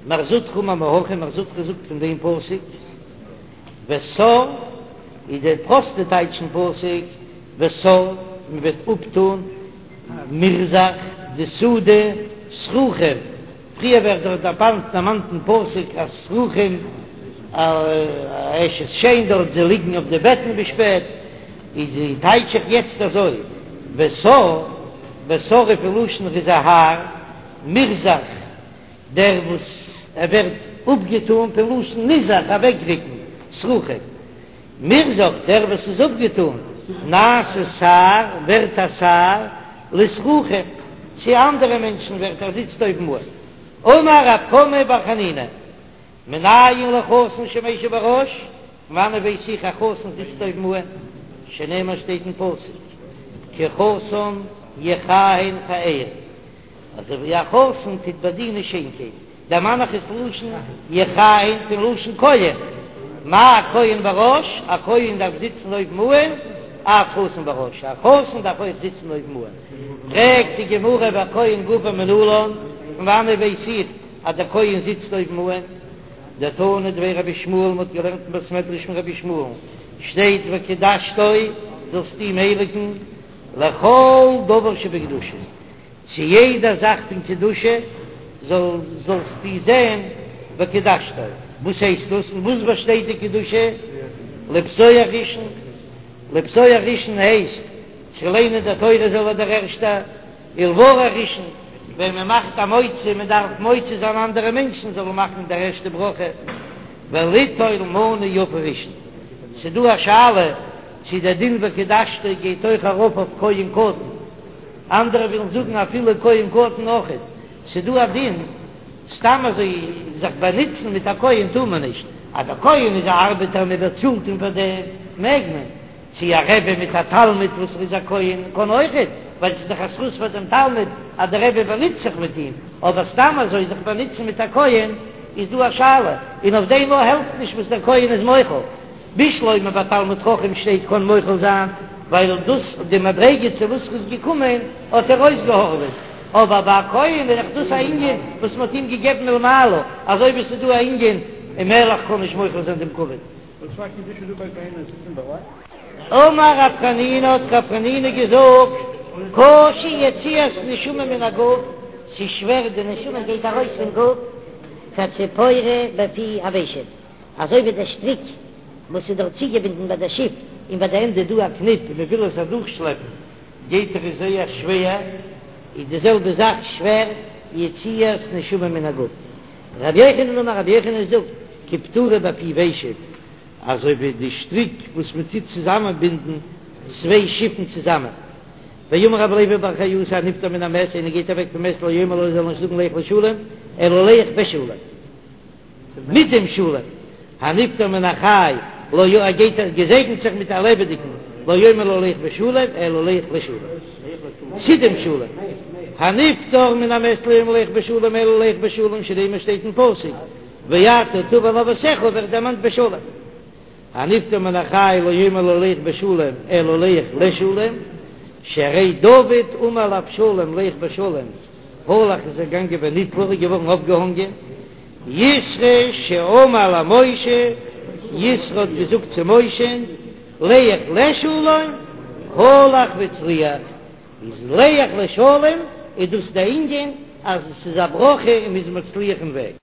מר זוטרא אמר מהכא, מר זוטרא זאגט פון דעם פסוק, וסר איז דער פראסטע טייטש פון פסוק, וסר, מען וועט אפטון מרזח די סעודה סרוחים, פריער ווערט דארט דערמאנט דערמאנט אין פסוק אז סרוחים אשת שן דארט זיי ליגן אויף די בעטן ביז שפעט, איז די טייטש איך יעצט אזוי, וסר, וסר איז פון לשון ער איז א האר, מרזח דער וואס ער ווערט אפגעטאן פון לשון נזח אוועקריקן, סרוחים. מרזח דער וואס איז אפגעטאן, נעשה שר, ווערט א שר, לסרוחים, צו אנדערע מענטשן ווערט ער זיצט אויבן אן. אמר רב חמא בר חנינא, מנין לחתן שמשיב בראש, פון וואנעט ווייס איך א חתן זיצט אויבן אן, שנאמר שטייט אין פסוק, כי חתן יכהן פאר, אזוי ווי א חתן טוט באדינען שיינקייט. דערמאן איך עס לשון יכהן פון לשון כהן, מה כהן בראש, א כהן דארף זיצן אויבן אן, אף חתן בראש, א חתן דארף אויך זיצן אויבן אן. פרעגט די גמרא והכהן גופא מנלן, פון וואנעט ווייס איך אז דער כהן זיצט אויבן אן? דתנא דבי רבי ישמעאל, מ'האט געלערנט אין בית מדרש פון רבי ישמעאל'ן, שטייט וקדשתו, זאלסט אים הייליגן, לכל דבר שבקדושה. צו יעדע זאך פון קדושה זאל זאלסטו זען וקדשתו, וואס הייסט דאס? אין וואס באשטייט די קדושה? לפתוח ראשון, לפתוח ראשון הייסט צו ליינען די תורה זאל ער דער ערשטער, ולברך ראשון, ווען מען מאכט א מוציא, מען דארף מוציא זיין אנדערע מענטשן זאלן מאכן דער ערשטע ברכה, וליטול מנה יפה ראשון, ס'דא א שאלה צו דער דין וקדשתו גייט אויך ארויף אויף כהן קטן. אנדערע ווילן זאגן אפילו כהן קטן אויכעט, ס'דא א דין, סתם אזוי זיך באנוצן מיט א כהן טאר מען נישט, אז דער כהן איז א ארבעטער מען באצאלט אים פאר דעם מעג מען, צו א רבי מיט א תלמיד וואס איז א כהן קען אויכעט, ווייל ס'איז דאך א זכות פאר דעם תלמיד אז דער רבי באנוצט זיך מיט אים, אבער סתם אזוי זיך באנוצן מיט א כהן איז דא א שאלה, און אויף דעם אויך העלפט נישט וואס דער כהן איז מוחל. בשלמא ביי תלמיד חכם שטייט קען מוחל זיין, ווייל דאס די מדריגה צו וואס ר'איז געקומען האט ער אויסגעהארעוועט, אבער ביי א כהן איז דאך דאס א ענין וואס מ'האט אים געגעבן מלמעלה, אזוי ווי ס'איז דא א ענין א מלך קען נישט מוחל זיין דעם כבוד. אמר רב חנינא האט רב חנינא געזאגט, קשה יציאת נשמה מן הגוף, ס'איז שווער די נשמה גייט ארויס פון גוף, כציפורא בפי הוושט. אזוי ווי דער שטריק וואס איז דארט צוגעבינדן ביי דער שיף, און ביי די ענדע איז דא א קניפ און מען וויל עס אדורכשלעפן גייט דאך עס זייער שווער, איז די זעלבע זאך שווער יציאת נשמה מן הגוף. רבי יוחנן אמר רבי יוחנן זאגט כפטורא בפי ושט, אזוי ווי די שטריק וואס מען טוט צוזאמען בינדן צוויי שיפן צוזאמען. ואמר רבי לוי בר חיותא הנפטר מן המת איינער גייט אוועק פון מת לא יאמר לו זאל נישט זאגן לך לשלום אלא לך בשלום. מיט דעם שלום, הנפטר מן החי, לא י ער גייט ער געזעגנט זיך מיט א לעבעדיגן, לא יאמר לו לך בשלום, אלא לך לשלום, צו דעם שלום, הנפטר מן המת לא יאמר לך בשלום אלא לך בשלום, שנאמר שטייט אין פסוק, ואתה תבוא אל אבותיך ווערט דערמאנט בשלום, הנפטר מן החי לא יאמר לו לך בשלום אלא לך לשלום, שהרי דוד אמר לאבשלום לך בשלום, הלך איז ער געגאנגען ונתלה איז געווארן אויפגעהאנגען, יתרו שאמר למשה, יתרו האט געזאגט צו משה'ן, לך לשלום, הלך והצליח, איז לך לשלום איז דאס די ענין אז עס איז א ברכה און מ'איז מצליח אין וועג.